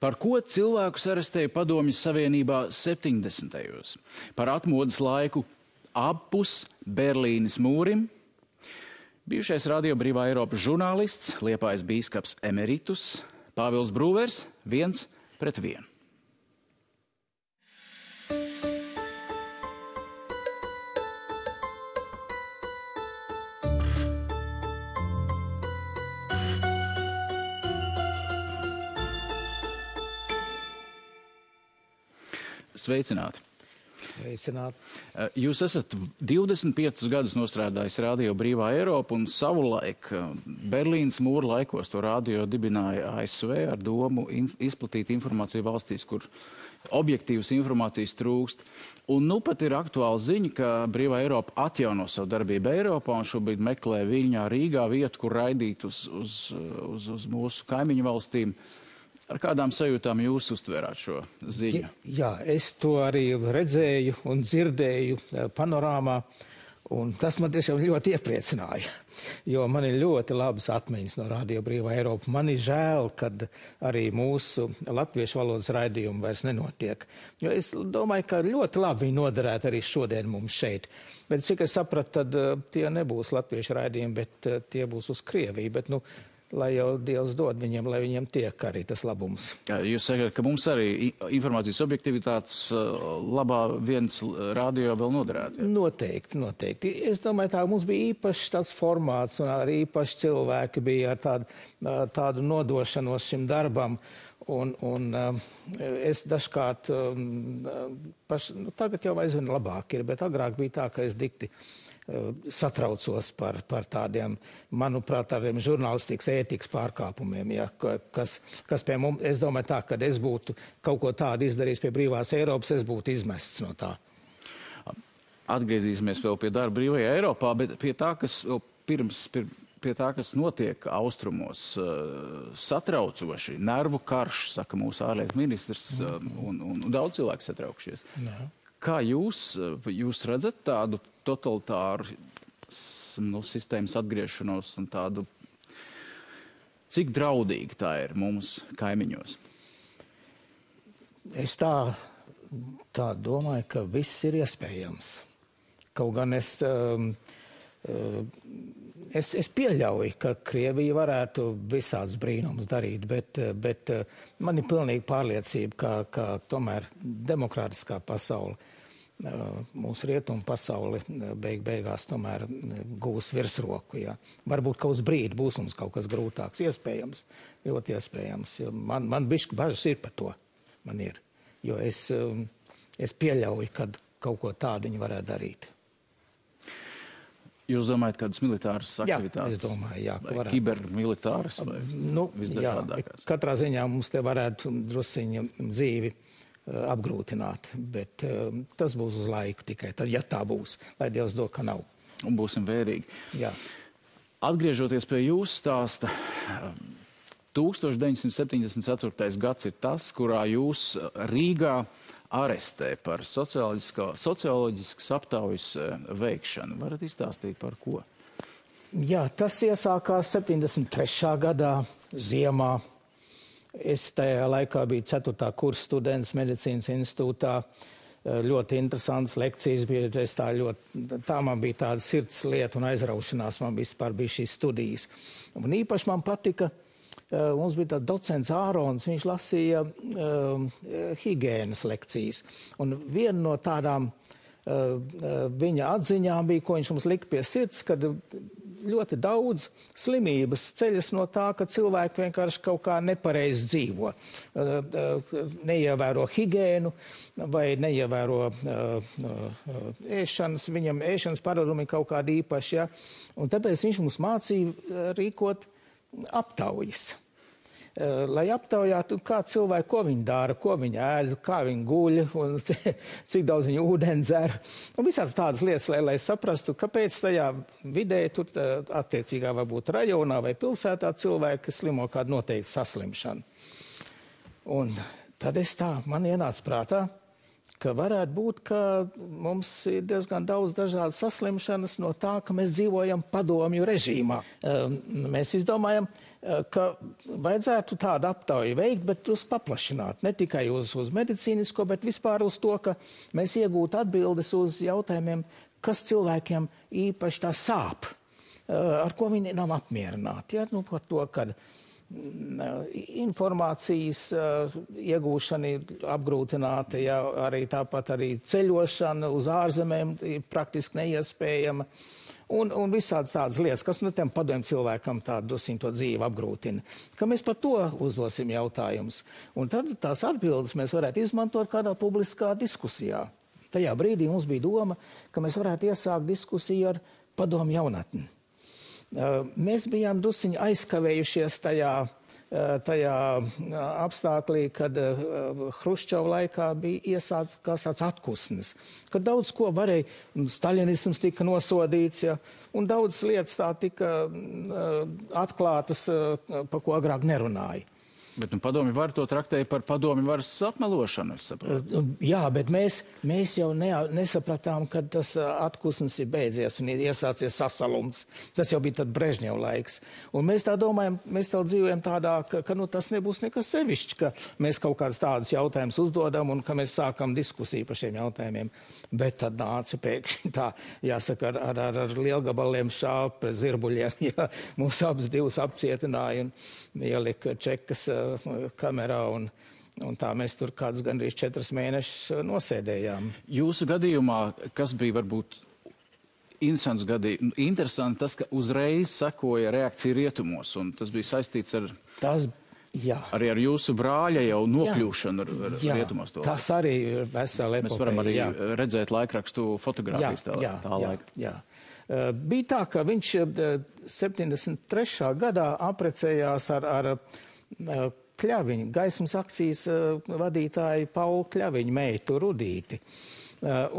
Par ko cilvēkus arestēja Padomju Savienībā 70. Par atmodas laiku apus Berlīnes mūrim. Bijušais Radio Brīvā Eiropas žurnālists, Liepājas bīskaps emeritus, Pāvils Brūvers 1-1. Sveicināti! Sveicināti! Jūs esat 25 gadus nostrādājis Radio Brīvā Eiropa un savulaik Berlīnas mūra laikos to radio dibināja ASV ar domu izplatīt informāciju valstīs, kur objektīvas informācijas trūkst. Un nu pat ir aktuāla ziņa, ka Brīvā Eiropa atjauno savu darbību Eiropā un šobrīd meklē Viļņā, Rīgā vietu, kur raidīt uz mūsu kaimiņu valstīm. Ar kādām sajūtām jūs uztvērāt šo ziņu? Jā, es to arī redzēju un dzirdēju panorāmā, un tas man tiešām ļoti iepriecināja, jo man ir ļoti labas atmiņas no Radio Brīvā Eiropa. Man ir žēl, kad arī mūsu latviešu valodas raidījumi vairs nenotiek, jo es domāju, ka ļoti labi viņi noderētu arī šodien mums šeit. Bet cik es sapratu, tad tie nebūs latviešu raidījumi, bet tie būs uz Krieviju, bet lai jau Dievs dod viņiem, lai viņiem tiek arī tas labums. Jūs sakat, ka mums arī informācijas objektivitātes labā viens radio vēl noderētu? Noteikti. Es domāju, tā mums bija īpašs tāds formāts un arī īpaši cilvēki bija ar tādu nodošanos šim darbam. Un es dažkārt, tagad jau aizvien labāk ir, bet agrāk bija tā, ka es dikti satraucos par tādiem, manuprāt, tādiem žurnālistikas ētikas pārkāpumiem, ja, kas pie mums, es domāju tā, kad es būtu kaut ko tādu izdarījis pie Brīvās Eiropas, es būtu izmests no tā. Atgriezīsimies vēl pie darba Brīvajā Eiropā, bet pie tā, kas notiek austrumos, satraucoši, nervu karš, saka mūsu ārlietu ministrs, un daudz cilvēku satraukšies. Jā. Kā jūs redzat tādu totalitāru sistēmas atgriešanos un tādu, cik draudīgi tā ir mums kaimiņos? Es tā domāju, ka viss ir iespējams. Kaut gan es pieļauju, ka Krievija varētu visāds brīnums darīt, bet man ir pilnīgi pārliecība, ka tomēr demokrātiskā pasaule, mūsu rietumu pasauli beigās tomēr gūs virsroku. Ja. Varbūt kaut uz brīdi būs mums kaut kas grūtāks. Iespējams, ļoti iespējams. Man bišķi bažas ir par to. Man ir. Jo es pieļauju, ka kaut ko tādu viņi varētu darīt. Jūs domājat, kādas militāras aktivitātes? Jā, es domāju, jā. Vai kibermilitāras vai visdažādākās? Jā, katrā ziņā mums te varētu drusiņa dzīvi apgrūtināt, bet tas būs uz laiku tikai, tad, ja tā būs, lai Dievs dod, ka nav. Un būsim vērīgi. Jā. Atgriežoties pie jūsu stāsta, 1974. gads ir tas, kurā jūs Rīgā arestē par socioloģiskas aptaujas veikšanu. Varat izstāstīt par ko? Jā, tas iesākās 73. gadā ziemā. Es tajā laikā biju 4. kursa students medicīnas institūtā. Ļoti interesants lekcijas bija. Tā man bija tāda sirds lieta un aizraušanās. Man bija šīs studijas. Un īpaši man patika, mums bija tāds docents Ārons, viņš lasīja higienas lekcijas. Un viena no tādām viņa atziņām bija, ko viņš mums lika pie sirds, kad ļoti daudz slimības ceļas no tā, ka cilvēki vienkārši kaut kā nepareizi dzīvo. Neievēro higiēnu vai neievēro ēšanas, viņam ēšanas paradumi kaut kādi īpaši. Ja? Un tāpēc viņš mums mācīja rīkot aptaujas. Lai aptaujātu, kā cilvēki, ko viņi dara, ko viņi ēd, kā viņi guļ, un cik daudz viņi ūdeni dzer. Un visāds tādas lietas, lai saprastu, kāpēc tajā vidē, tur attiecīgā varbūt rajonā vai pilsētā cilvēki slimo kādu noteiktu saslimšanu. Un tad man ienāca prātā, ka varētu būt, ka mums ir diezgan daudz dažādas saslimšanas no tā, ka mēs dzīvojam padomju režīmā. Mēs izdomājam, ka vajadzētu tādu aptauju veikt, bet drusku paplašināt. Ne tikai uz medicīnisko, bet vispār uz to, ka mēs iegūtu atbildes uz jautājumiem, kas cilvēkiem īpaši tā sāp, ar ko viņi nav apmierināti. Ja? Nu, par to, kad informācijas iegūšana ir apgrūtināta, ja, arī tāpat arī ceļošana uz ārzemēm ir praktiski neiespējama. Un visādas tādas lietas, kas tiem padomju cilvēkam tādu to dzīvi apgrūtina. Ka mēs par to uzdosim jautājumus. Un tad tās atbildes mēs varētu izmantot kādā publiskā diskusijā. Tajā brīdī mums bija doma, ka mēs varētu iesākt diskusiju ar padomju jaunatni. Mēs bijām drusciņi aizkavējušies tajā apstāklī, kad Hruščova laikā bija iesākts tāds atkusnis, kad daudz ko varēja, staļinisms tika nosodīts, ja, un daudz lietas tā tika atklātas, par ko agrāk nerunāja. Bet padomju var to traktēja par padomju varas apmelošanu, es saprotu. Jā, bet mēs jau nesapratām, kad tas atkusnis ir beidzies un ir iesācies sasalums. Tas jau bija tad Brežņeva laiks. Un mēs tā domājam, mēs tā dzīvojam tādā, ka tas nebūs nekas sevišķi, ka mēs kaut kādus tādus jautājumus uzdodam un ka mēs sākam diskusiju par šiem jautājumiem. Bet tad nāca pēkšņi tā, jāsaka, ar lielgabaliem šāp pret zirbuļiem. Ja, mūs abas divas apcietināja un ielika čekas kamerā un tā mēs tur kādus gandrīz 4 mēnešus nosēdējām. Jūsu gadījumā, kas bija varbūt interesanti tas, ka uzreiz sekoja reakcija rietumos, un tas bija saistīts ar... Arī ar jūsu brāļa jau nokļūšanu ar rietumos to. Tas arī ir vesela epopēja. Mēs varam arī redzēt laikrakstu fotogrāfijas tā laika. Jā. Bija tā, ka viņš 73. gadā aprecējās ar Kļaviņu, gaismas akcijas vadītāju Paulu Kļaviņu meitu Rudīti.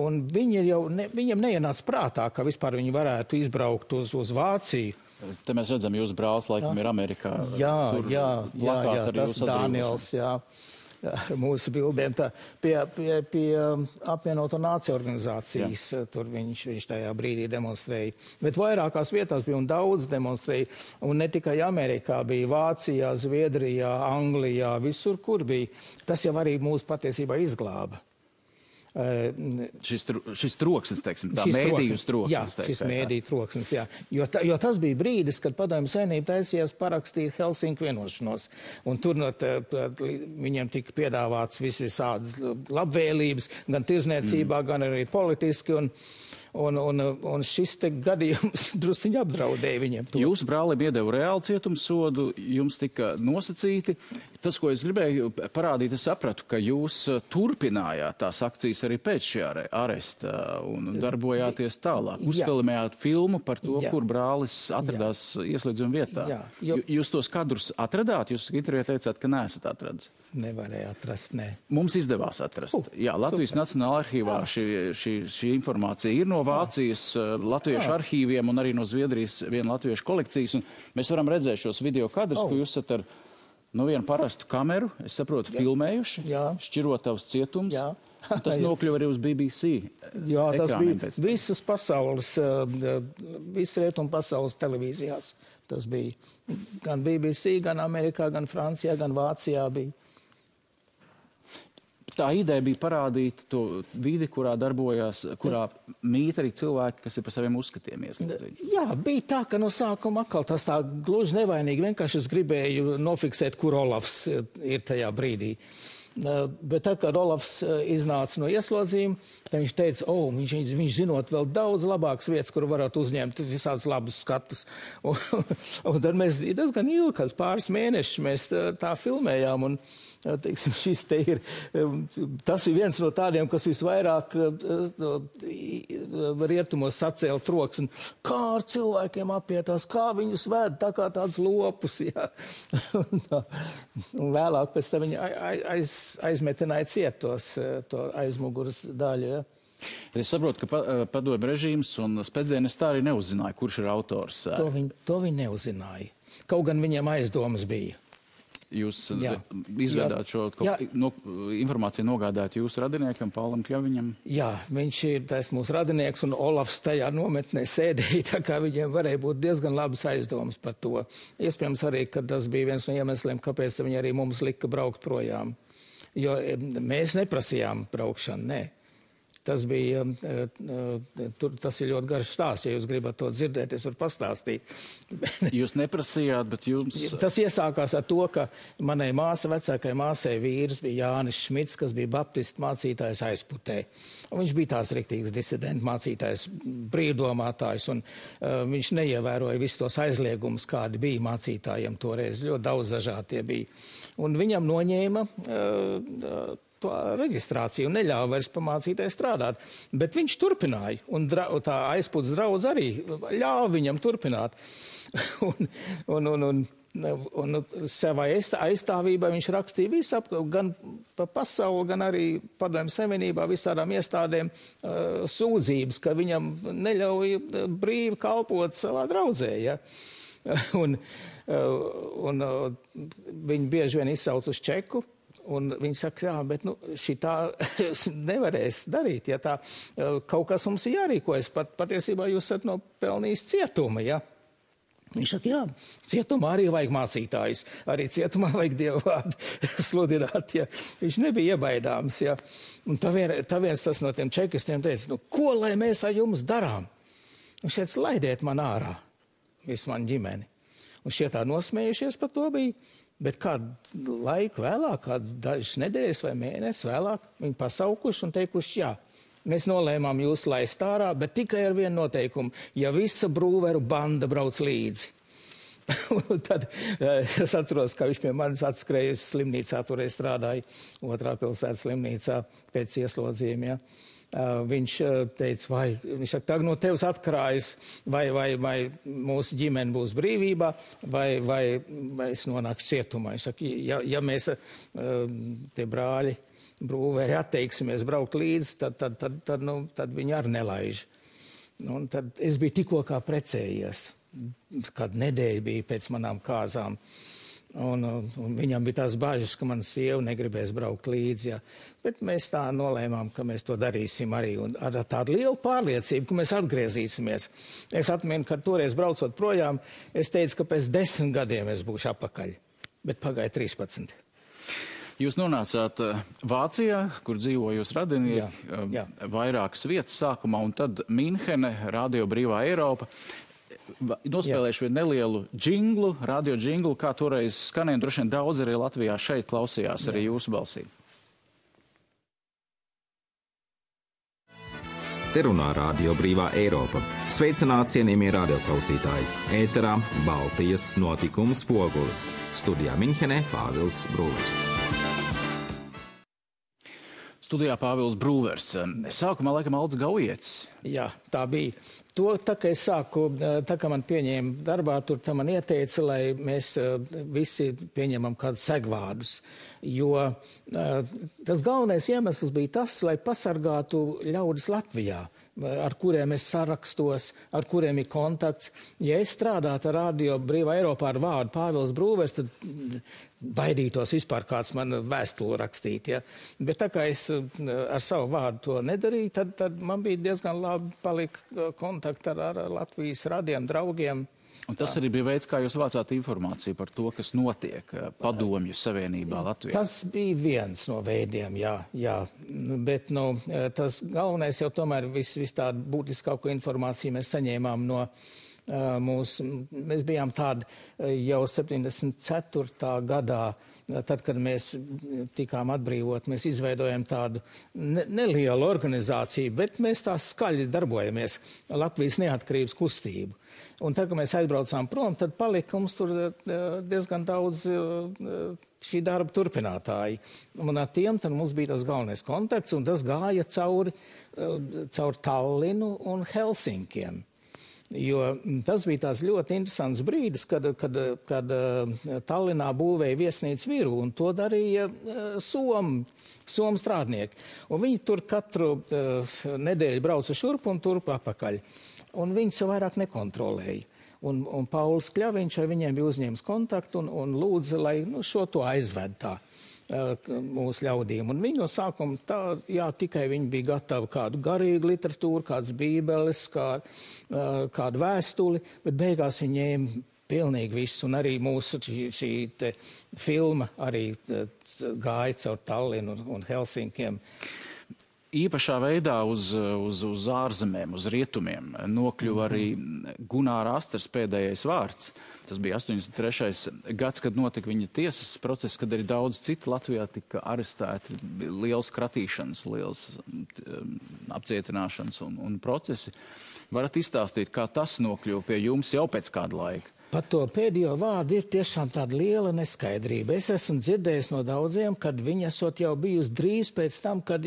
Un viņam neienāca prātā, ka vispār viņi varētu izbraukt uz Vāciju. Te mēs redzam, jūsu brālis laikam ir Amerikā. Jā, tas Dāniels, jā, ar mūsu bildēm. Pie apvienoto nāciju organizācijas, tur viņš tajā brīdī demonstrēja. Bet vairākās vietās bija un daudz demonstrēja. Un ne tikai Amerikā, bija Vācijā, Zviedrijā, Anglijā, visur, kur bija. Tas jau arī mūs patiesībā izglāba. Šis troksnis, teiksim, tā mēdīju troksnis. Jā, šis mēdīju troksnis, jā. Jo tas bija brīdis, kad Padomju Savienība taisījās parakstīt Helsinku vienošanos. Un tur viņiem tika piedāvāts visādas labvēlības, gan tirzniecībā, gan arī politiski. Un šis te gadījums drusciņi apdraudēja viņiem to. Jūsu brālim iedeva reāli cietumsodu, jums tika nosacīti. Tas, ko es gribēju parādīt, es sapratu, ka jūs turpinājāt tās akcijas arī pēc šī aresta un darbojāties tālāk. Uzfilmējāt filmu par to, kur brālis atradās ieslēdzuma vietā. Jūs tos kadrus atradāt? Jūs intervijā teicāt, ka neesat atradis. Nevarēja atrast, nē. Mums izdevās atrast. Jā, Latvijas Nacionālajā arhīvā šī informācija ir no Vācijas latviešu arhīviem un arī no Zviedrijas viena latviešu kolekcijas. Un mēs varam redzēt šos video kadrus, ko jūs esat ar vienu parastu kameru, es saprotu, filmējuši, Šķirotavas cietums. Tas nokļuva arī uz BBC. Jā, tas bija visas pasaules, visas rietumu pasaules televīzijās. Tas bija gan BBC, gan Amerikā, gan Francijā, gan Vācijā bija. Tā ideja bija parādīt to vidi, kurā darbojās, kurā mīt arī cilvēki, kas ir par saviem uzskatiem ieslēdzīti. Jā, bija tā, ka no sākuma atkal tas tā gluži nevainīgi. Vienkārši es gribēju nofiksēt, kur Olafs ir tajā brīdī. Bet tad, kad Olafs iznāca no ieslodzījuma, tad viņš teica, viņš zinot vēl daudz labākas vietas, kur varētu uzņemt visādus labus skatus. Un tad mēs diezgan ilgi, pāris mēnešus mēs tā filmējām. Un, teiksim, tas ir viens no tādiem, kas visvairāk rietumos sacēla troksni. Kā ar cilvēkiem apietās, kā viņus ved, tā kā tāds lopus. Jā. Un vēlāk pēc tam viņi aizmetināja cietos to aizmuguras daļu. Ja. Es saprotu, ka padomju režīms un spēcdienas tā arī neuzzināja, kurš ir autors. To viņi neuzzināja. Kaut gan viņiem aizdomas bija. Jūs izvedāt šo informāciju, nogādāt jūsu radiniekam, Paulam Kļaviņam? Jā, viņš ir tas mūsu radinieks, un Olafs tajā nometnē sēdēja, tā kā viņiem varēja būt diezgan labas aizdomas par to. Iespējams arī, ka tas bija viens no iemesliem, kāpēc viņi arī mums lika braukt projām. Jo mēs neprasījām braukšanu, nē. Tas bija, tas ir ļoti garš stāsts, ja jūs gribat to dzirdēt, es varu pastāstīt. Jūs neprasījāt, bet jums... Tas iesākās ar to, ka manai vecākai māsai vīrs bija Jānis Šmits, kas bija baptistu mācītājs Aizputē. Un viņš bija tās riktīgs disidenta mācītājs, brīvdomātājs, un viņš neievēroja visus tos aizliegumus, kādi bija mācītājiem toreiz. Ļoti daudz dažādi tie bija. Un viņam noņēma to reģistrāciju un neļāva vairs pamācītai strādāt. Bet viņš turpināja, un tā Aizputs draudz arī ļāva viņam turpināt. un savai aizstāvībai viņš rakstīja visu gan pa pasauli, gan arī Padomju Savienībā visādām iestādēm sūdzības, ka viņam neļauj brīvi kalpot savā draudzē, ja. un viņi bieži vien izsauc uz čeku, un viņi saka, jā, bet šitā nevarēs darīt, ja tā kaut kas mums ir jārīkojas. Patiesībā jūs esat nopelnījis cietuma, ja? Viņš saka, jā, cietumā arī vajag mācītājus, arī cietumā vajag Dievu vārdu sludināt, ja? Viņš nebija iebaidāms, ja? Un tā viens tas no tiem čekistiem teica, ko lai mēs ar jums darām? Viņš teica, laidiet man ārā, visu man ģimeni. Un šie tā nosmējušies par to bija. Bet kādu laiku vēlāk, kādu dažas nedēļas vai mēnesi vēlāk, viņi pasaukuši un teikuši, jā, mēs nolēmām jūs laist ārā, bet tikai ar vienu noteikumu, ja visa Brūveru banda brauc līdzi. Un tad es atceros, ka viņš pie manis atskrējusi slimnīcā, toreiz strādāja Otrā pilsētas slimnīcā pēc ieslodzījuma, ja. Viņš teica, viņš saka, tagad no tevis atkarājas, vai mūsu ģimene būs brīvībā, vai es nonākšu cietumā. Viņš saka, ja mēs tie brāļi Brūveri atteiksimies braukt līdzi, tad viņi arī nelaiž. Un tad es biju tikko kā precējies, kad nedēļa bija pēc manām kāzām. Un viņam bija tās bāžas, ka mana sieva negribēs braukt līdzi, ja. Bet mēs tā nolēmām, ka mēs to darīsim arī, un ar tādu lielu pārliecību, ka mēs atgriezīsimies. Es atminu, ka toreiz braucot projām, es teicu, ka pēc 10 gadiem es būšu apakaļ, bet pagāja 13. Jūs nonācāt Vācijā, kur dzīvo jūs radinieki, vairākas vietas sākumā, un tad Minhene, Radio Brīvā Eiropa. Nospēlēšu vienu nelielu džinglu, radio džinglu, kā toreiz skanēja, droši vien daudz arī Latvijā šeit klausījās arī jūsu balsī. Te runā Radio Brīvā Eiropa. Sveicināti, cienījamie radioklausītāji. Ēterā Baltijas notikumu spogulis. Studijā Minhenē Pāvils Brūvers. Studijā Pāvils Brūvers. Sākumā laikam Alds Gaujietis. Jā, tā bija. To, tā kā es sāku, tā kā man pieņēma darbā, tur tā man ieteica, lai mēs visi pieņemam kādus segvārdus. Jo tas galvenais iemesls bija tas, lai pasargātu ļaudis Latvijā, ar kuriem es sarakstos, ar kuriem ir kontakts. Ja es strādātu ar Radio Brīvā Eiropā ar vārdu Pāvils Brūvers, tad baidītos vispār kāds man vēstuli rakstīt. Ja? Bet tā kā es ar savu vārdu to nedarīju, tad man bija diezgan labi palika kontakti ar Latvijas radiem, draugiem. Un tas arī bija veids, kā jūs vācāt informāciju par to, kas notiek Padomju Savienībā Latvijā. Tas bija viens no veidiem, jā. Bet tas galvenais jau tomēr viss tādu būtiskāko informāciju mēs saņēmām no mēs bijām tādi jau 74. gadā, tad, kad mēs tikām atbrīvot, mēs izveidojam tādu nelielu organizāciju, bet mēs tā skaļi darbojamies, Latvijas neatkarības kustību. Un tad, kad mēs aizbraucām prom, tad palika mums tur diezgan daudz šī darba turpinātāji. Un ar tiem tad mums bija tas galvenais kontakts, un tas gāja caur Tallinu un Helsinkiem. Jo tas bija tās ļoti interesants brīdis, kad Tallinā būvēja viesnīcu viru, un to darīja Somu strādnieki. Un viņi tur katru nedēļu brauca šurp un turp apakaļ. Un viņi sev vairāk nekontrolēja. Un Pauls Kļaviņš ar viņiem bija uzņēmis kontaktu un lūdza, lai šo to aizved tā mūsu ļaudīm. Un viņi no sākuma tikai viņi bija gatavi kādu garīgu literatūru, kādas bībeles, kādu vēstuli, bet beigās viņi ņēma pilnīgi viss. Un arī mūsu šī filma arī gāja caur Tallinu un Helsinkiem. Īpašā veidā uz ārzemēm, uz rietumiem nokļuva arī Gunāra Astras pēdējais vārds. Tas bija 83. gads, kad notika viņa tiesas process, kad arī daudz citu Latvijā tika arestēti. Liels kratīšanas, liels apcietināšanas un procesi. Varat izstāstīt, kā tas nokļuva pie jums jau pēc kāda laika? Par to pēdējo vārdu ir tiešām tāda liela neskaidrība. Es esmu dzirdējis no daudziem, kad viņi esot jau bijusi drīz pēc tam, kad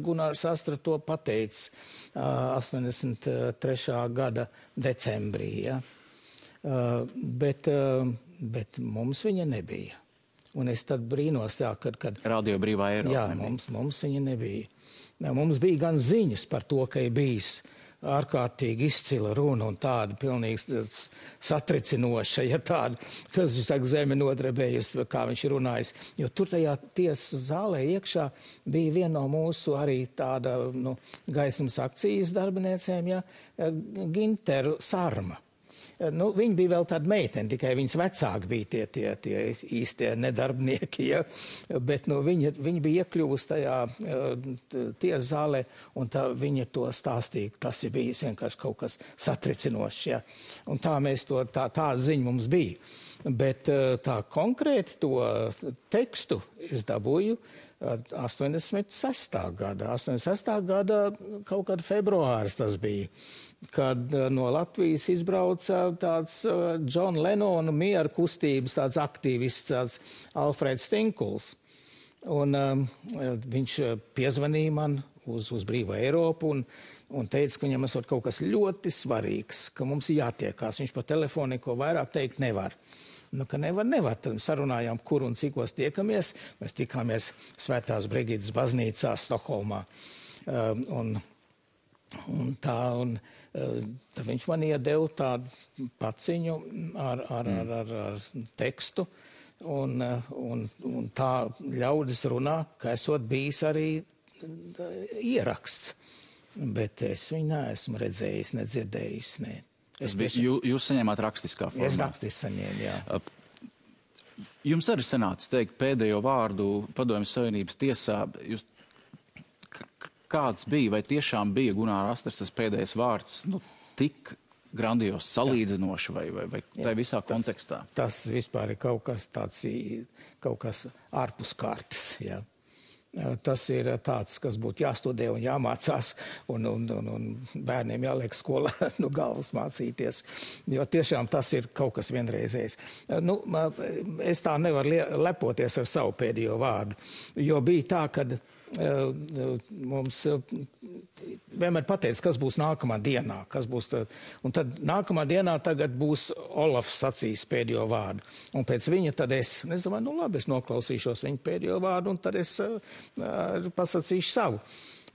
Gunārs Astra to pateicis 83. gada decembrī. Ja? Bet mums viņa nebija. Un es tad brīnos, kad Radio Brīvā Eiropa. Jā, mums viņa nebija. Mums bija gan ziņas par to, ka ir bijis ārkārtīgi izcila runa un tāda pilnīgi satricinoša, ja tāda, kas, saka, zeme nodrebējusi, kā viņš ir runājis. Jo tur tajā tiesas zālē iekšā bija viena no mūsu arī tāda, gaismas akcijas darbiniecēm, ja, Ginteru Sarma. Viņa bija vēl tāda meitene, tikai viņas vecāki bija tie īstie nedarbnieki, ja? Bet viņa bija iekļuvusi tajā tiesas zālē, un viņa to stāstīja, tas ir bijis vienkārši kaut kas satricinošs. Ja? Un tā tāda ziņa mums bija. Bet tā konkrēti to tekstu es dabūju 86. gada. 86. gada kaut kāda februāris tas bija, kad no Latvijas izbrauca tāds John Lennon miera kustības tāds aktīvists, tāds Alfreds Tinkuls. Un viņš piezvanīja man uz Brīvo Eiropu un teica, ka viņam esot kaut kas ļoti svarīgs, ka mums ir jātiekās. Viņš pa telefonu neko vairāk teikt nevar. Ka nevar. Tad sarunājām, kur un cikos tiekamies. Mēs tikāmies Svētās Brigidas baznīcā Stokholmā. Tad viņš man iedeva tādu paciņu ar tekstu. Un tā ļaudis runā, ka esot bijis arī ieraksts. Bet es viņu neesmu redzējis, nedzirdējis, ne. Jūs saņēmāt rakstiskā formā? Es rakstiski saņēmu, jā. Jums arī sanāca teikt pēdējo vārdu Padomju Savienības tiesā. Kāds bija, vai tiešām bija Gunāra Astras tas pēdējais vārds tik grandios, salīdzinoši vai tā visā kontekstā? Tas vispār ir kaut kas tāds, kaut kas ārpus kārtas, jā. Tas ir tāds, kas būtu jāstudē un jāmācās, un bērniem jāliek skolā galvas mācīties, jo tiešām tas ir kaut kas vienreizējs. Es tā nevaru lepoties ar savu pēdējo vārdu, jo bija tā, kad mums vienmēr pateica, kas būs nākamā dienā, un tad nākamā dienā tagad būs Olafs sacīs pēdējo vārdu, un pēc viņa tad es domāju, labi, es noklausīšos viņa pēdējo vārdu, un tad es pasacīšu savu.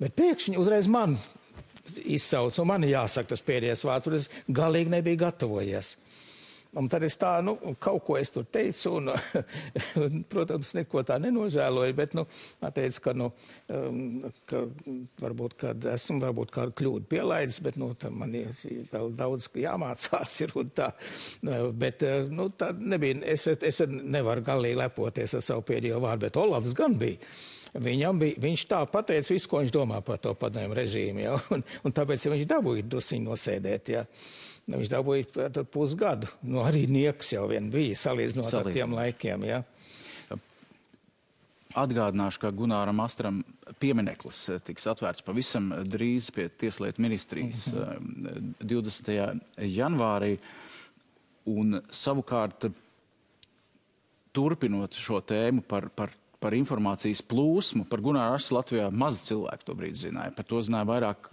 Bet pēkšņi uzreiz man izsauc, un man jāsaka tas pēdējais vārds, un es galīgi nebiju gatavojies. Un tad es kaut ko es tur teicu, un protams, neko tā nenožēloju, bet, teicu, ka varbūt, kad esmu kādu kļūdu pielaidis, bet, man ir vēl daudz jāmācās ir un tā. Bet, tā nebija, es nevaru galīgi lepoties ar savu pēdējo vārdu, bet Olafs gan bija. Viņš tā pateica visu, ko viņš domā par to padomju režīmu, ja? Un tāpēc, ja viņš dabūja drusiņu nosēdēt, ja? Viņš dabūja pusgadu. Arī nieks jau vien bija, salīdzinot ar tiem laikiem. Ja? Atgādināšu, ka Gunāram Astram piemineklis tiks atvērts pavisam drīz pie Tieslietu ministrijas 20. janvārī. Un savukārt, turpinot šo tēmu par informācijas plūsmu, par Gunāru Astru Latvijā maz cilvēku to brīdi zināja. Par to zināja vairāk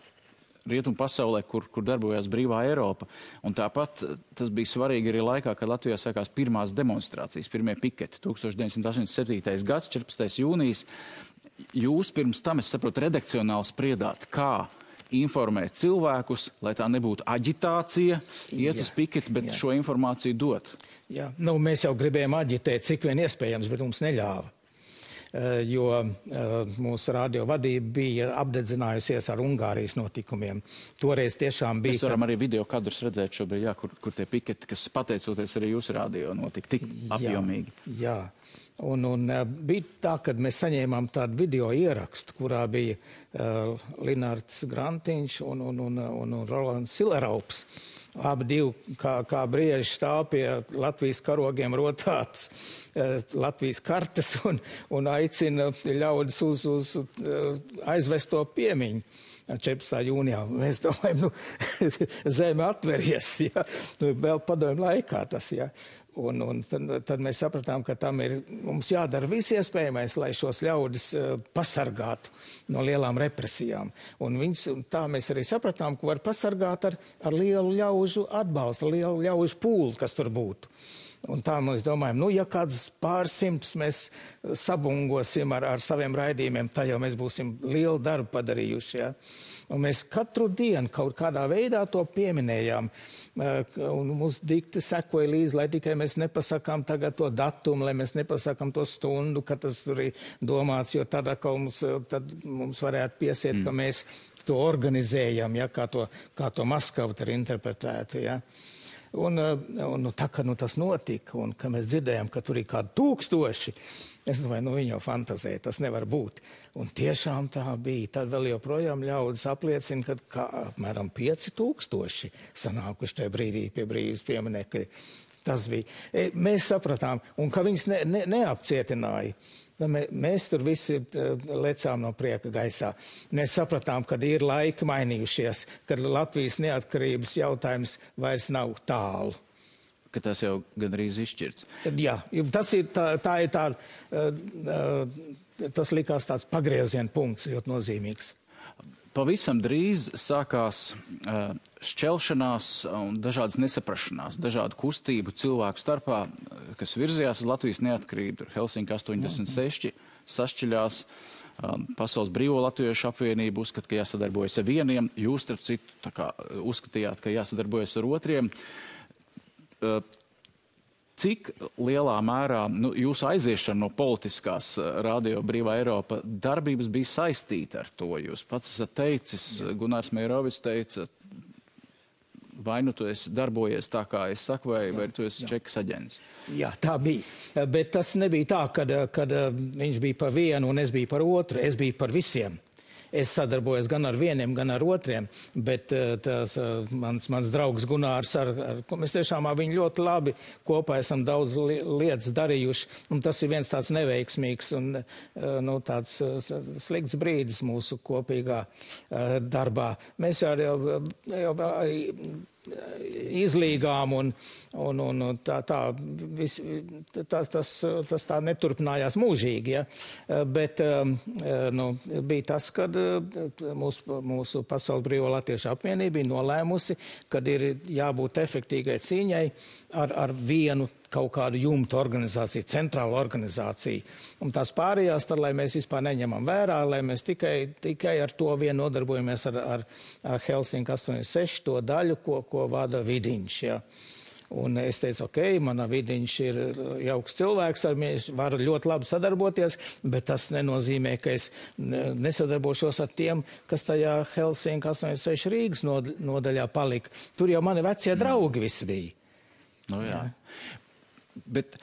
rietumu pasaulē, kur darbojās Brīvā Eiropa. Un tāpat tas bija svarīgi arī laikā, kad Latvijā sākās pirmās demonstrācijas, pirmie piketi, 1987. gads, 14. jūnijas. Jūs pirms tam, es saprotu, redakcionāli spriedāt, kā informēt cilvēkus, lai tā nebūtu aģitācija, iet uz piketi, bet šo informāciju dot. Jā, nu, mēs jau gribējām aģitēt, cik vien iespējams, bet mums neļāva. Jo mūsu radio vadība bija apdedzinājusies ar Ungārijas notikumiem. Toreiz tiešām bija... Mēs varam arī video kadrus redzēt šobrīd, jā, kur tie piketi, kas pateicoties arī jūsu radio notika tik apjomīgi. Jā. Un bija tā, kad mēs saņēmām tādu video ierakstu, kurā bija Linards Grantiņš un Rolands Sileraups. Abi divi, kā brieži stāv pie Latvijas karogiem rotātas Latvijas kartes un aicina ļaudis uz aizvesto piemiņu. 14. jūnijā. Mēs domājam, zeme atveries, ja? Vēl padomju laikā tas, ja? Un tad mēs sapratām, ka mums jādara viss iespējamais, lai šos ļaudis pasargātu no lielām represijām. Un tā mēs arī sapratām, ka var pasargāt ar lielu ļaužu atbalstu, lielu ļaužu pūli, kas tur būtu. Un tā mēs domājam, ja kāds pārsimts mēs sabungosim ar saviem raidījumiem, tā jau mēs būsim lielu darbu padarījuši, ja? Un mēs katru dienu kaut kādā veidā to pieminējām. Un mums dikti sekoja līdzi, lai tikai mēs nepasakām tagad to datumu, lai mēs nepasakām to stundu, ka tas tur ir domāts, jo tad mums varētu piesiet, ka mēs to organizējam, ja, kā to Maskavu ir interpretētu. Ja. Un tā, ka tas notika, un ka mēs dzirdējām, ka tur ir kādi 1000, es domāju, viņi jau fantazē, tas nevar būt. Un tiešām tā bija. Tad vēl joprojām ļaudis apliecina, ka apmēram 5000 sanākuši tajā brīdī pie brīvības pieminekļa. Tas bija. Mēs sapratām, un ka viņus neapcietināja. Mēs tur visi lecām no prieka gaisā. Mēs sapratām, ka ir laiki mainījušies, kad Latvijas neatkarības jautājums vairs nav tālu. Ka tas jau gandrīz izšķirts. Jā, tas likās tāds pagrieziena punkts, ļoti nozīmīgs. Pavisam drīz sākās šķelšanās un dažādas nesaprašanās, dažādu kustību cilvēku starpā, kas virzījās uz Latvijas neatkarību. Helsinki 86 sašķiļās, Pasaules brīvo latviešu apvienība uzskata, ka jāsadarbojas ar vieniem, jūs, starp citu, uzskatījāt, ka jāsadarbojas ar otriem. Cik lielā mērā jūsu aiziešana no politiskās Radio Brīvā Eiropa darbības bija saistīta ar to? Jūs pats esat teicis, Gunārs Meirovics teica, vai tu esi darbojies tā, kā es saku, vai tu esi čekas aģents? Jā, tā bija. Bet tas nebija tā, kad viņš bija par vienu un es biju par otru. Es biju par visiem. Es sadarbojos gan ar vieniem, gan ar otriem, bet mans draugs Gunārs, mēs tiešām ar viņu ļoti labi kopā esam daudz lietas darījuši, un tas ir viens tāds neveiksmīgs un tāds slikts brīdis mūsu kopīgā darbā. Mēs jau izlīgām un tas tā neturpinājās mūžīgi, ja? Bet bija tas, kad mūsu Pasaules brīvo latviešu apvienība bija nolēmusi, kad ir jābūt efektīgai cīņai ar vienu kaut kādu jumtu organizāciju, centrālu organizāciju. Un tās pārējās, tad, lai mēs vispār neņemam vērā, lai mēs tikai ar to vien nodarbojamies ar Helsinki 86 to daļu, ko vada Vidiņš. Ja. Un es teicu, mana Vidiņš ir jauks cilvēks, ar mēs varu ļoti labi sadarboties, bet tas nenozīmē, ka es nesadarbošos ar tiem, kas tajā Helsinki 86 Rīgas nodaļā palika. Tur jau mani vecie draugi visi bija. Jā. Bet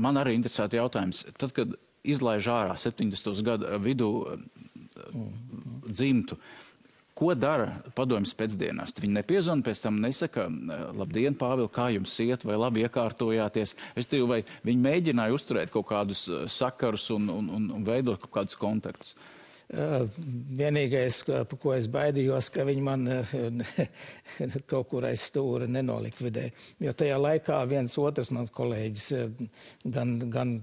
man arī interesēta jautājums. Tad, kad izlaiž ārā 70. gadu vidū dzimtu, ko dara padomjas pēcdienās? Viņi nepiezvana, pēc tam nesaka, labdien, Pāvil, kā jums iet, vai labi iekārtojāties? Vai viņi mēģināja uzturēt kaut kādus sakarus un veidot kaut kādus kontaktus? Vienīgais, ko es baidījos, ka viņi man kaut kur aiz stūra nenolikvidē. Jo tajā laikā viens otrs mans kolēģis, gan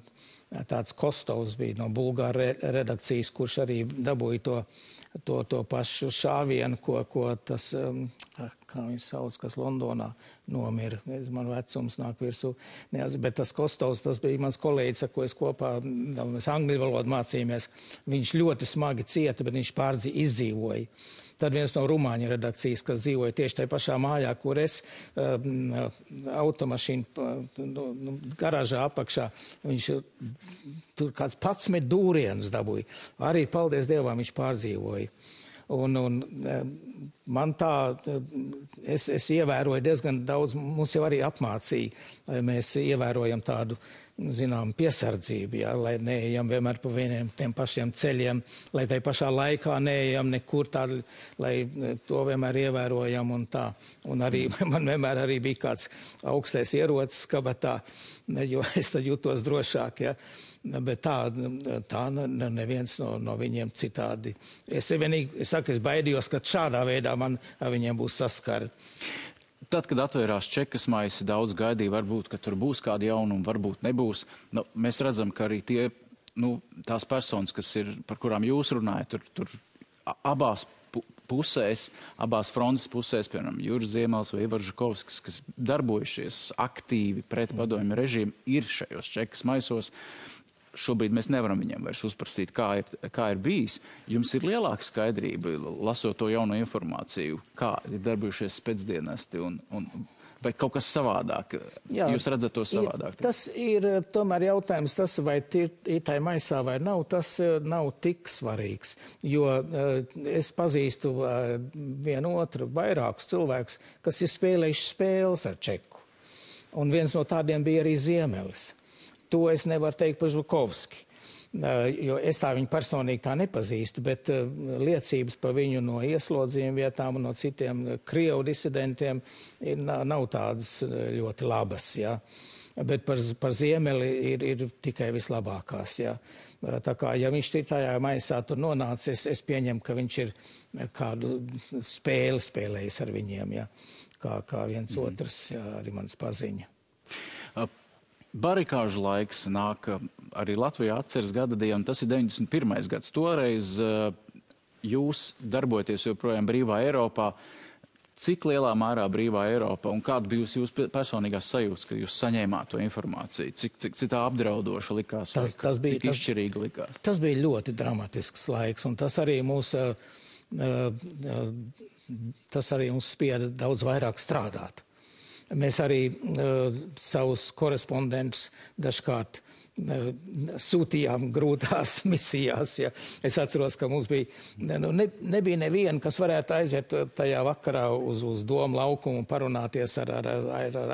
tāds Kostovs bija no Bulgāra redakcijas, kurš arī dabūja to pašu šāvienu, ko tas, kā viņš sauc, kas Londonā nomira. Man vecums nāk virsū. Bet tas Kostovs, tas bija mans kolēģis, ar ko es kopā, mēs angļu valodu mācījāmies. Viņš ļoti smagi cieta, bet viņš izdzīvoja. Tad viens no rumāņu redakcijas, kas dzīvoja tieši tajā pašā mājā, kur es automašīnu garāžā apakšā, viņš tur kāds 11 dūrienus dabūja. Arī, paldies Dievam, viņš pārdzīvoja. Un man tā, es ievēroju diezgan daudz, mums jau arī apmācīja, mēs ievērojam tādu, zinām, piesardzību, jā, lai neejam vienmēr pa vieniem tiem pašiem ceļiem, lai tai pašā laikā neejam nekur tādu, lai to vienmēr ievērojam un tā. Un arī man vienmēr arī bija kāds augstais ierocis kabatā, jo es tad jūtos drošāk, jā. Bet tā neviens no viņiem citādi. Es saku, es baidījos, ka šādā veidā man ar viņiem būs saskara. Tad, kad atvērās čekas maisi, daudz gaidīja, varbūt, ka tur būs kādi jaunumi, varbūt nebūs. Nu, mēs redzam, ka arī tās personas, kas ir, par kurām jūs runājat, tur abās pusēs, abās frontes pusēs, piemēram, Juris Ziemels vai Ivars Žukovskis, kas darbojušies aktīvi pret padomju režīmu, ir šajos čekas maisos. Šobrīd mēs nevaram viņiem vairs uzprasīt, kā ir bijis. Jums ir lielāka skaidrība, lasot to jauno informāciju, kā ir darbojušies pēcdienesti un vai kaut kas savādāk? Jā, jūs redzat to savādāk? Tas ir tomēr jautājums, tas vai ir tai maisā vai nav, tas nav tik svarīgs. Jo es pazīstu vienu otru vairākus cilvēkus, kas ir spēlējuši spēles ar čeku. Un viens no tādiem bija arī Ziemelis. To es nevaru teikt par Žukovski, jo es tā viņu personīgi tā nepazīstu, bet liecības par viņu no ieslodzījuma vietām un no citiem Krievu disidentiem nav tādas ļoti labas, jā. Bet par Ziemeli ir tikai vislabākās, jā. Tā kā, ja viņš tajā maisā tur nonācis, es pieņemu, ka viņš ir kādu spēli spēlējis ar viņiem, jā. Kā viens otrs, jā, arī mans paziņa. Barikāžu laiks nāk arī Latvijā atceres gada diena, tas ir 91. gads. Toreiz jūs darbojaties joprojām brīvā Eiropā. Cik lielā mērā brīvā Eiropa un kāda bija jūsu personīgās sajūtas, kad jūs saņēmāt to informāciju? Cik tā apdraudoša likās, cik izšķirīga likās? Tas bija ļoti dramatisks laiks, un tas arī mūs spieda daudz vairāk strādāt. Mēs arī savus korespondentus dažkārt sūtījām grūtās misijās. Ja. Es atceros, ka mums bija, nebija neviena, kas varētu aiziet tajā vakarā uz domu laukumu un parunāties ar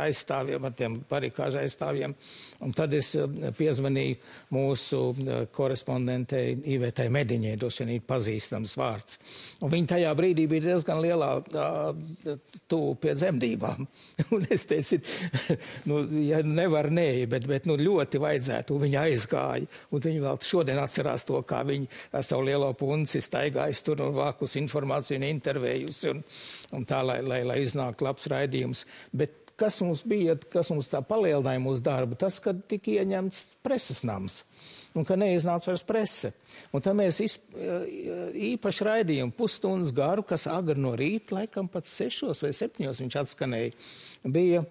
aizstāvjiem, ar tiem barikāžu aizstāvjiem. Un tad es piezvanīju mūsu korespondentei Ivetai Mediņai, droši vien ir pazīstams vārds. Un viņa tajā brīdī bija diezgan lielā tuvu pie dzemdībām. Un es teicu, ja nevar bet ļoti vajadzētu. Un viņa aizgāja, un viņa vēl šodien atcerās to, kā viņa ar savu lielo punci staigājas tur un vākus informāciju un intervējusi, un tā, lai iznāktu labs raidījums. Bet kas mums tā palielināja mūsu darbu, tas, kad tika ieņemts preses nams, un ka neiznāca vairs prese. Un tad mēs īpaši raidījumu pusstundas garu, kas agri no rīta, laikam pat 6 vai 7 viņš atskanēja, bija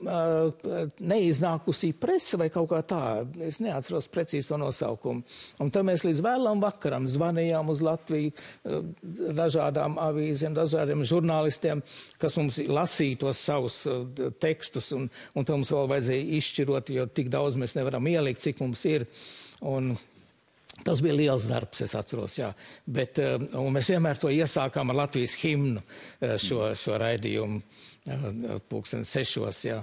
neiznākusī prese vai kaut kā tā. Es neatceros precīzi to nosaukumu. Un tad mēs līdz vēlam vakaram zvanījām uz Latviju dažādām avīzēm, dažādiem žurnālistiem, kas mums lasīja tos savus tekstus, un tad mums vēl vajadzēja izšķirot, jo tik daudz mēs nevaram ielikt, cik mums ir. Un tas bija liels darbs, es atceros, jā. Bet, un mēs vienmēr to iesākām ar Latvijas himnu šo raidījumu 6:00, jā,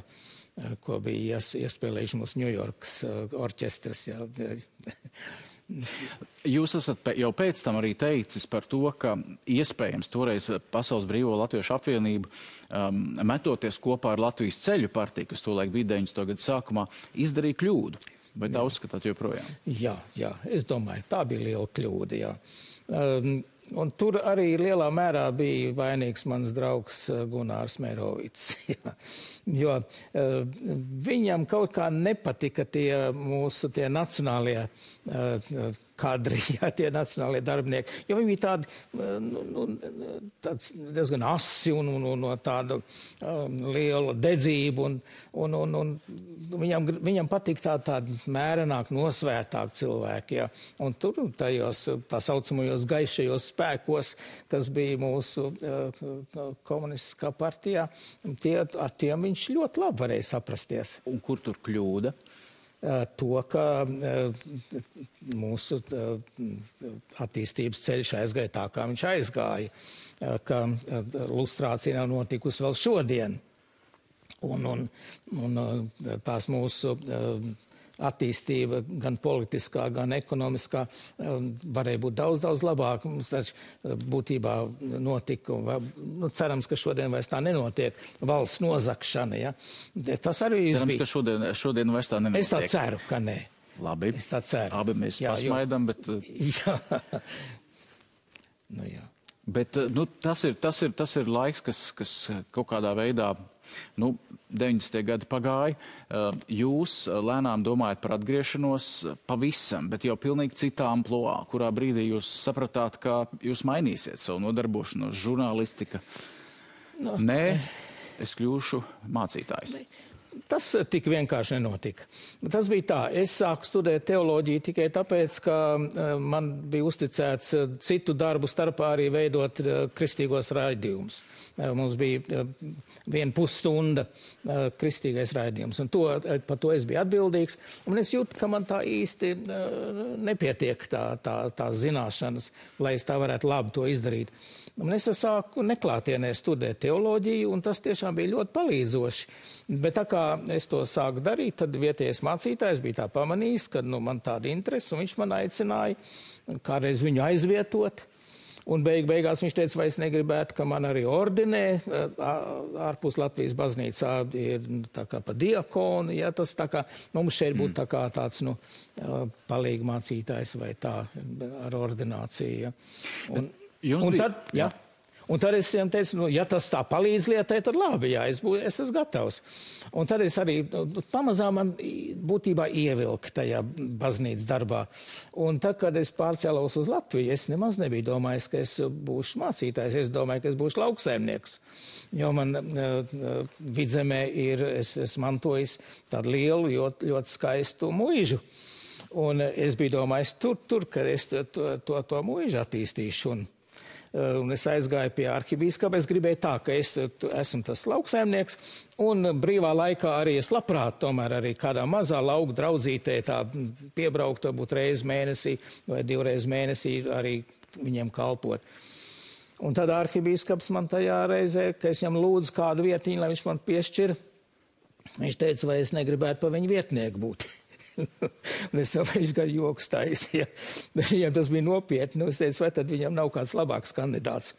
ko bija iespēlējuši mūsu Ņujorkas orķestras, jā. Jūs esat jau pēc tam arī teicis par to, ka iespējams toreiz Pasaules Brīvo Latviešu apvienību metoties kopā ar Latvijas ceļu partiju, kas tolaik bija 90. gadu sākumā, izdarīja kļūdu. Vai tā uzskatāt joprojām? Jā, es domāju, tā bija liela kļūda, jā. Un tur arī lielā mērā bija vainīgs mans draugs Gunārs Mērovics. Jo viņam kaut kā nepatika tie mūsu nacionālie kadri, jā, tie nacionālie darbinieki, jo viņi bija tādi, tāds diezgan asi un tāda liela dedzība, un viņam patīk tāda mērenāk, nosvērtāk cilvēki, jā. Un tur tajos tā saucamajos gaišajos spēkos, kas bija mūsu komunistiskā partijā, ar tiem viņš ļoti labi varēja saprasties. Un kur tur kļūda? To, ka mūsu attīstības ceļš aizgāja tā, kā viņš aizgāja, ka lustrācija nav notikusi vēl šodien. Un tās mūsu attīstība, gan politiskā, gan ekonomiskā, varēja būt daudz labāk. Mums taču būtībā notika, cerams, ka šodien vairs tā nenotiek, valsts nozakšana, ja. Tas arī cerams, bija. Ka šodien vairs tā nenotiek. Es tā ceru, ka nē. Labi. Es tā ceru. Abi mēs pasmaidam, bet... Jā. Nu, jā. Bet, tas ir laiks, kas kaut kādā veidā... 90. gadi pagāja, jūs lēnām domājat par atgriešanos pavisam, bet jau pilnīgi citā amploā, kurā brīdī jūs sapratāt, ka jūs mainīsiet savu nodarbošanos, žurnālistika. Nē, es kļūšu mācītājs. Tas tik vienkārši nenotika. Tas bija tā, es sāku studēt teoloģiju tikai tāpēc, ka man bija uzticēts citu darbu starpā arī veidot kristīgos raidījumus. Mums bija 1,5 stunda kristīgais raidījums, un par to es biju atbildīgs. Un es jūtu, ka man tā īsti nepietiek tā zināšanas, lai es tā varētu labi to izdarīt. Un es sāku neklātienē studēt teoloģiju, un tas tiešām bija ļoti palīdzoši. Bet tā kā es to sāku darīt, tad vietējais mācītājs bija tā pamanījis, ka man tāda interese, un viņš man aicināja kādreiz viņu aizvietot. Un beigās viņš teica, vai es negribētu, ka man arī ordinē ārpus Latvijas baznīcā ir tā kā pa diakonu, ja tas tā kā, mums šeit būtu tā kā tāds, palīgi mācītājs vai tā ar ordināciju, ja. Un tad es viņam teicu, ja tas tā palīdz lietai, tad labi, jā, es esmu gatavs. Un tad es arī pamazām man būtībā ievilku tajā baznīcas darbā. Un tad, kad es pārcēlos uz Latviju, es nemaz nebiju domājis, ka es būšu mācītājs. Es domāju, ka es būšu lauksaimnieks. Jo man Vidzemē es mantojis tādu lielu, ļoti skaistu muižu. Un es biju domājis tur, ka es to muižu attīstīšu. Un es aizgāju pie arhibīskapa. Es gribēju tā, ka es esmu tas lauksaimnieks, un brīvā laikā arī es labprāt tomēr arī kādā mazā lauku draudzītē tā piebraukt, varbūt reizi mēnesī vai 2 reizes mēnesī arī viņiem kalpot. Un tad arhibīskaps man tajā reizē, ka es viņam lūdzu kādu vietiņu, lai viņš man piešķir, viņš teica, vai es negribētu pa viņu vietnieku būt. Un es domāju, viņš gan joks taisīja. Bet viņam tas bija nopietni. Es teicu, vai tad viņam nav kāds labāks kandidāts.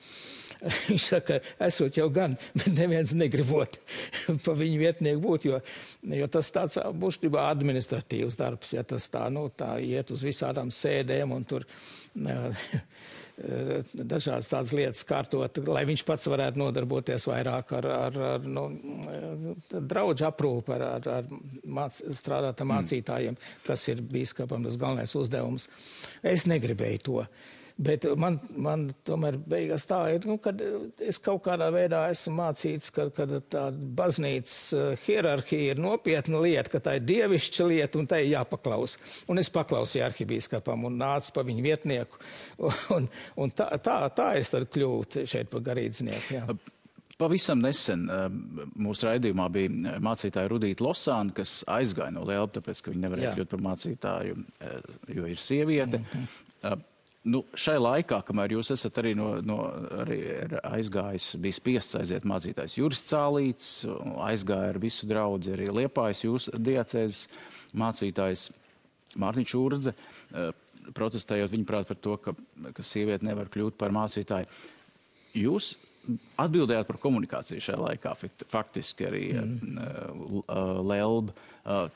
Viņš saka, esot jau gan, bet neviens negribot pa viņu vietnieku būt, jo tas tāds būštībā administratīvs darbs, ja tas tā iet uz visādām sēdēm un tur dažādas tādas lietas kārtot, lai viņš pats varētu nodarboties vairāk ar draudžu aprūpu, strādāt ar mācītājiem, kas ir bīskapam tas galvenais uzdevums. Es negribēju to. Bet man tomēr beigās tā ir, kad es kaut kādā veidā esmu mācīts, ka tā baznīcas hierarhija ir nopietna lieta, ka tā ir dievišķa lieta un tā ir jāpaklaus. Un es paklausīju arhibīskapam un nācu pa viņu vietnieku. Un tā es tad kļūtu šeit par garīdznieku. Jā. Pavisam nesen mūsu raidījumā bija mācītāja Rudīta Losāna, kas aizgāja no Lielpa, tāpēc, ka viņa nevarēja kļūt par mācītāju, jo ir sieviete. Šai laikā, kamēr jūs esat arī arī aizgājis, bija spiests aiziet mācītājs Juris Cālīts, aizgāja ar visu draudzi arī Liepājas jūsu diacēzes mācītājs Mārtiņš Urdze, protestējot viņuprāt par to, ka sieviete nevar kļūt par mācītāju. Jūs Atbildējāt par komunikāciju šajā laikā, faktiski arī Lelba.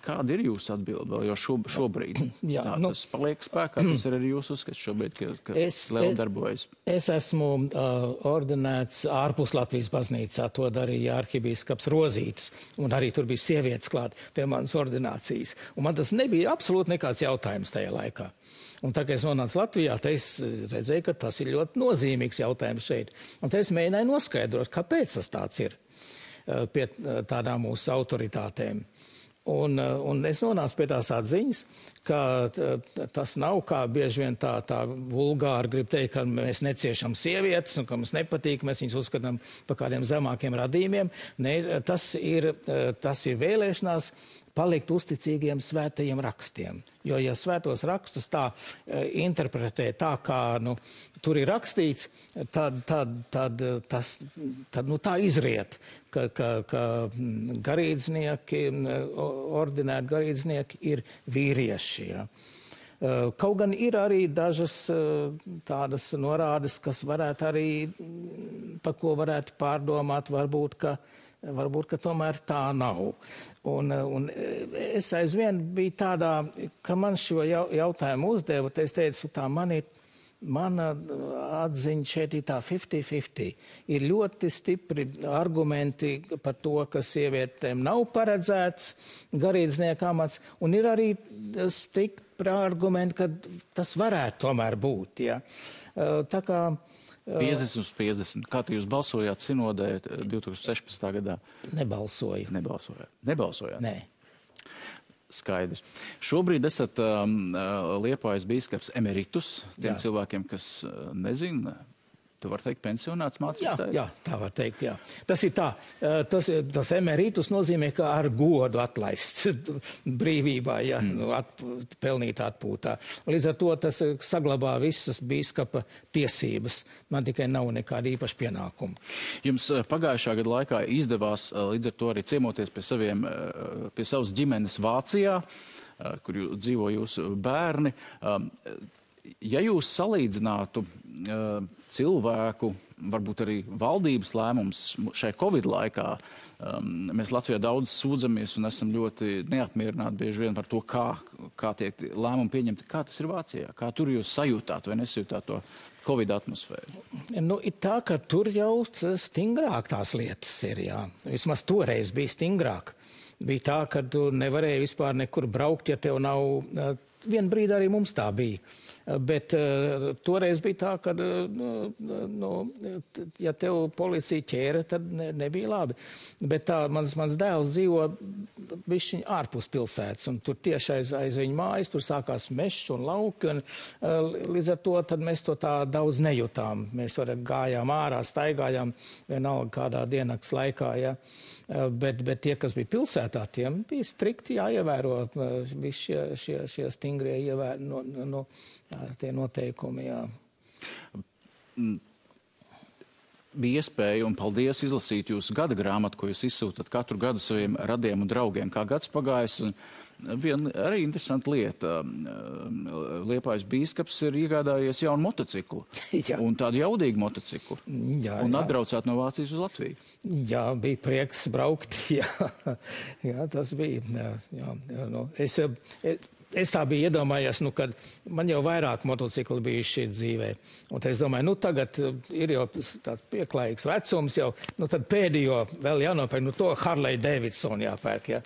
Kāda ir jūsu atbilde vēl jau šobrīd? Jā, tas paliek spēkā, tas ir arī jūsu uzskats šobrīd, ka Lelba darbojas. Es esmu ordinēts ārpus Latvijas baznīcā, to darīja arhibīskaps Rozītis, un arī tur bija sievietes klāt pie manas ordinācijas. Un man tas nebija absolūti nekāds jautājums tajā laikā. Un tā kā es nonācu Latvijā, te es redzēju, ka tas ir ļoti nozīmīgs jautājums šeit. Un te es mēģināju noskaidrot, kāpēc tas tāds ir pie tādām mūsu autoritātēm. Un es nonācu pie tās atziņas, ka tas nav kā bieži vien tā vulgāri grib teikt, ka mēs neciešam sievietes un ka mums nepatīk, mēs viņus uzskatām par kādiem zemākiem radījumiem. Ne, tas ir vēlēšanās palikt uzticīgiem svētajiem rakstiem. Jo, ja svētos rakstus tā interpretē tā, kā tur ir rakstīts, tad tā izriet, ka garīdznieki, ordinēti garīdznieki ir vīrieši. Ja. Kaut gan ir arī dažas tādas norādes, kas varētu arī, par ko varētu pārdomāt, varbūt, ka tomēr tā nav. Un es aizvien biju tādā, ka man šo jautājumu uzdeva, es teicu, tā mana atziņa šeit ir tā 50-50. Ir ļoti stipri argumenti par to, ka sievietēm nav paredzēts garīdznieka amats, un ir arī stipri argumenti, ka tas varētu tomēr būt. Ja. Tā kā 50 uz 50. Kā jūs balsojāt sinodē 2016. gadā? Nebalsoju. Nebalsojāt? Nē. Skaidrs. Šobrīd esat Liepājas bīskaps emeritus. Tiem cilvēkiem, kas nezina, tu var teikt pensionāts mācītājs? Jā, tā var teikt, jā. Tas ir tā. Tas emeritus nozīmē, ka ar godu atlaists brīvībā, ja, pelnīt atpūtā. Līdz ar to tas saglabā visas bīskapa tiesības. Man tikai nav nekāda īpaša pienākuma. Jums pagājušā gada laikā izdevās līdz ar to arī ciemoties pie savas ģimenes Vācijā, kur dzīvo jūsu bērni. Ja jūs salīdzinātu cilvēku, varbūt arī valdības lēmums šai Covid laikā, mēs Latvijā daudz sūdzamies un esam ļoti neapmierināti bieži vien par to, kā tiek lēmumi pieņemti. Kā tas ir Vācijā? Kā tur jūs sajūtāt vai nesajūtāt to Covid atmosfēru? Ir tā, ka tur jau stingrāk tās lietas ir, jā. Vismaz toreiz bija stingrāk. Bija tā, ka tu nevarēji vispār nekur braukt, ja tev nav... Vienu brīdi arī mums tā bija. Bet toreiz bija tā, ka, ja tev policija ķēra, tad nebija labi. Bet tā, mans dēls dzīvo bišķiņ ārpus pilsētas, un tur tieši aiz viņa mājas, tur sākās mežs un lauki, un līdz ar to tad mēs to tā daudz nejūtām. Mēs gājām ārā, staigājām vienalga kādā diennakts laikā, ja. Bet tie, kas bija pilsētā, tiem bija strikti jāievēro visi šie stingrie tie noteikumi, jā. Bija iespēja, un paldies, izlasīt jūsu gada grāmatu, ko jūs izsūtat katru gadu saviem radiem un draugiem. Kā gads pagājis, un viena arī interesanta lieta. Liepājas bīskaps ir iegādājies jaunu motociklu. Jā. Un tādu jaudīgu motociklu. Jā, un atbraucāt no Vācijas uz Latviju. Jā, bija prieks braukt. Jā, tas bija. Jā. Es tā biju iedomājies, kad man jau vairāk motocikli bijuši dzīvē. Un es domāju, tagad ir jau tāds pieklājīgs vecums jau, tad pēdējo vēl jānopērk, to Harley Davidson jāpērk, jā.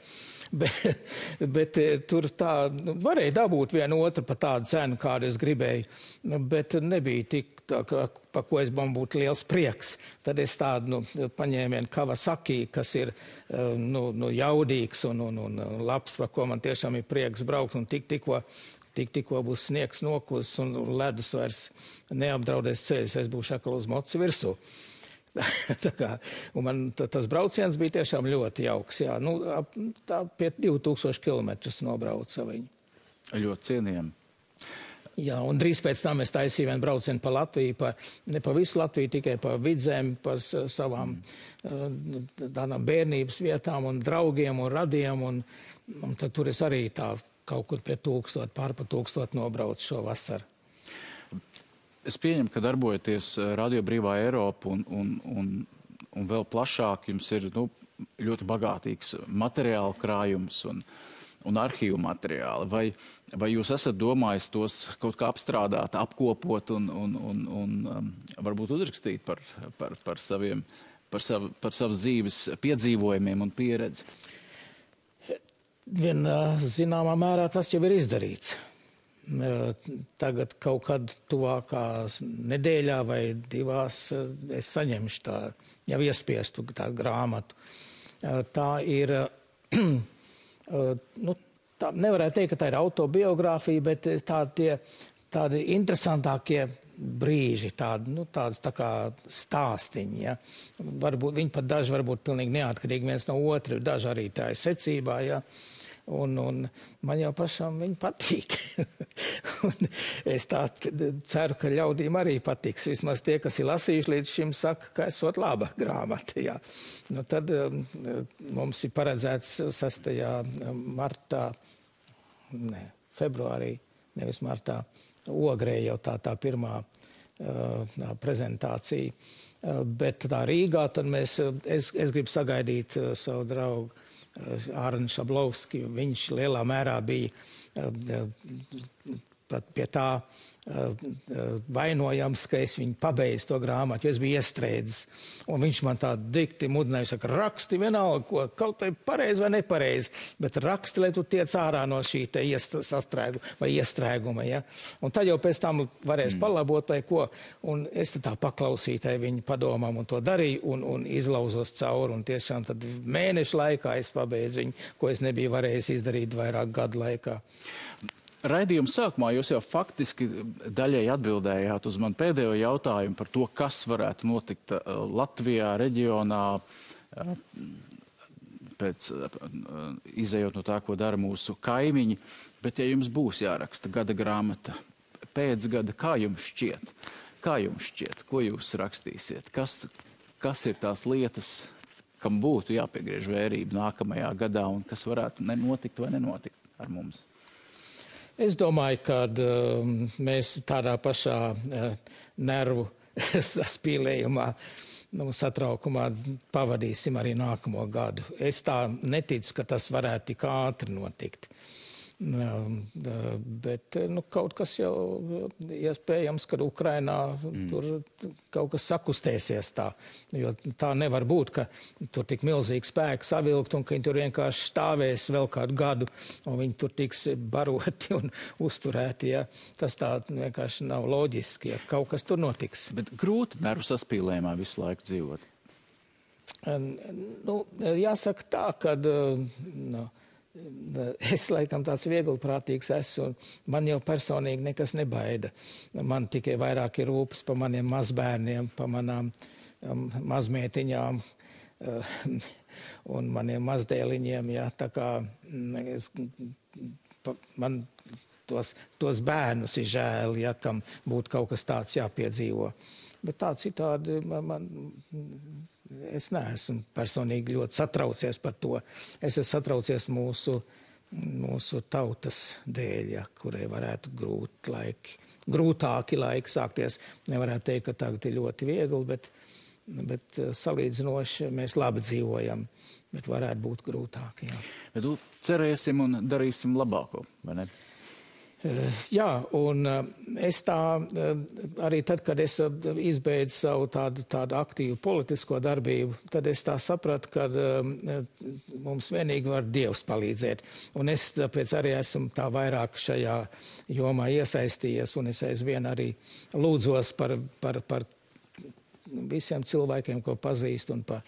Bet tur tā varēja dabūt vienu otru par tādu cenu, kādu es gribēju, bet nebija tik tā, par ko es man būtu liels prieks. Tad es tādu paņēmu vienu Kawasaki, kas ir jaudīgs un labs, par ko man tiešām ir prieks braukt, un tikko būs sniegs nokus un ledus vairs neapdraudēs ceļus, es būšu atkal uz mocu virsū. Un man tas brauciens bija tiešām ļoti jauks. Jā. Tā pie 2000 kilometrus nobrauca viņu. Ļoti cienījami. Jā, un drīz pēc tam es taisīju vienu braucienu pa Latviju, ne pa visu Latviju, tikai pa Vidzemi, par savām tādām bērnības vietām un draugiem un radiem. Un tad tur es arī tā kaut kur pie 1000, pār pa 1000 nobraucu šo vasaru. Es pieņemu, ka darbojaties Radio Brīvā Eiropa un un vēl plašāk jums ir ļoti bagātīgs materiāla krājums un arhīvu materiāli. Vai jūs esat domājis tos kaut kā apstrādāt, apkopot un varbūt uzrakstīt par savas dzīves piedzīvojumiem un pieredzi? Zināmā mērā tas jau ir izdarīts. Tagad kaut kad tuvākās nedēļā vai divās es saņemšu tā jau iespiestu tā grāmatu. Tā ir, tā nevarētu teikt, ka tā ir autobiogrāfija, bet tādi interesantākie brīži, tādas tā kā stāstiņi. Ja? Viņi pat daži varbūt pilnīgi neatkarīgi viens no otra, daži arī tā ir secībā. Ja? Un man jau pašam viņi patīk. Un es tā ceru, ka ļaudīm arī patiks. Vismaz tie, kas ir lasījuši līdz šim, saka, ka esot laba grāmata. Jā. Tad mums ir paredzēts 6. februārī, nevis martā, Ogrē jau tā pirmā prezentācija. Bet tā Rīgā, tad es gribu sagaidīt savu draugu Ārnu Šablovski. Viņš lielā mērā bija pat pie tā vainojams, ka es viņu pabeidzu to grāmatu, jo es biju iestrēdzis. Un viņš man tā dikti mudināja, saka, raksti vienalga, ko kaut tai pareizi vai nepareizi, bet raksti, lai tu tiec ārā no šī te iestrēguma. Ja? Un tad jau pēc tam varēs palabot vai ko. Un es tā paklausīju viņu padomām un to darīju un izlauzos cauri. Un tiešām tad mēnešu laikā es pabeidzu viņu, ko es nebiju varējis izdarīt vairāk gadu laikā. Raidījuma sākumā jūs jau faktiski daļai atbildējāt uz man pēdējo jautājumu par to, kas varētu notikt Latvijā, reģionā, izejot no tā, ko dara mūsu kaimiņi. Bet ja jums būs jāraksta gada grāmata pēc gada, kā jums šķiet, ko jūs rakstīsiet? Kas ir tās lietas, kam būtu jāpiegriež vērība nākamajā gadā un kas varētu notikt vai nenotikt ar mums? Es domāju, ka mēs tādā pašā nervu saspīlējumā, satraukumā pavadīsim arī nākamo gadu. Es tā neticu, ka tas varētu tik ātri notikt. Bet kaut kas jau iespējams, kad Ukrainā tur kaut kas sakustēsies tā. Jo tā nevar būt, ka tur tik milzīgi spēki savilkt un ka viņi tur vienkārši stāvēs vēl kādu gadu un viņi tur tiks baroti un uzturēti. Ja. Tas tā vienkārši nav loģiski, ja kaut kas tur notiks. Bet grūti nervu saspīlējumā visu laiku dzīvot? Jāsaka tā, ka... Es laikam tāds vieglprātīgs esmu, un man jau personīgi nekas nebaida. Man tikai vairāk ir rūpes par maniem mazbērniem, par manām mazmētiņām un maniem mazdēliņiem. Ja, tā kā man tos bērnus ir žēl, ja, kam būtu kaut kas tāds jāpiedzīvo. Bet tā citādi es neesmu personīgi ļoti satraucies par to. Es esmu satraucies mūsu tautas dēļ, ja, kurai varētu grūtāki laiki sākties. Nevarētu teikt, ka tagad ir ļoti viegli, bet salīdzinoši mēs labi dzīvojam, bet varētu būt grūtāki. Jā. Bet cerēsim un darīsim labāko, vai ne? Jā, un es tā arī tad, kad es izbeidzu savu tādu aktīvu politisko darbību, tad es tā sapratu, ka mums vienīgi var Dievs palīdzēt. Un es tāpēc arī esmu tā vairāk šajā jomā iesaistījies, un es aizvien arī lūdzos par visiem cilvēkiem, ko pazīst, un par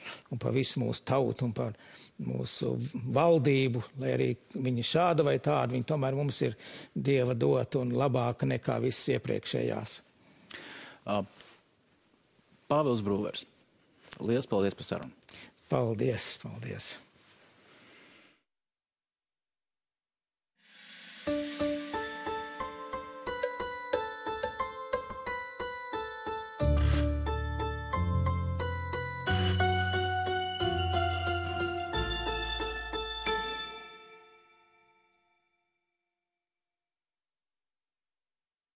visu mūsu tautu, un par mūsu valdību, lai arī viņi šāda vai tāda, viņi tomēr mums ir Dieva dota un labāka nekā visas iepriekšējās. Pāvils Brūlers, liels paldies par sarunu. Paldies.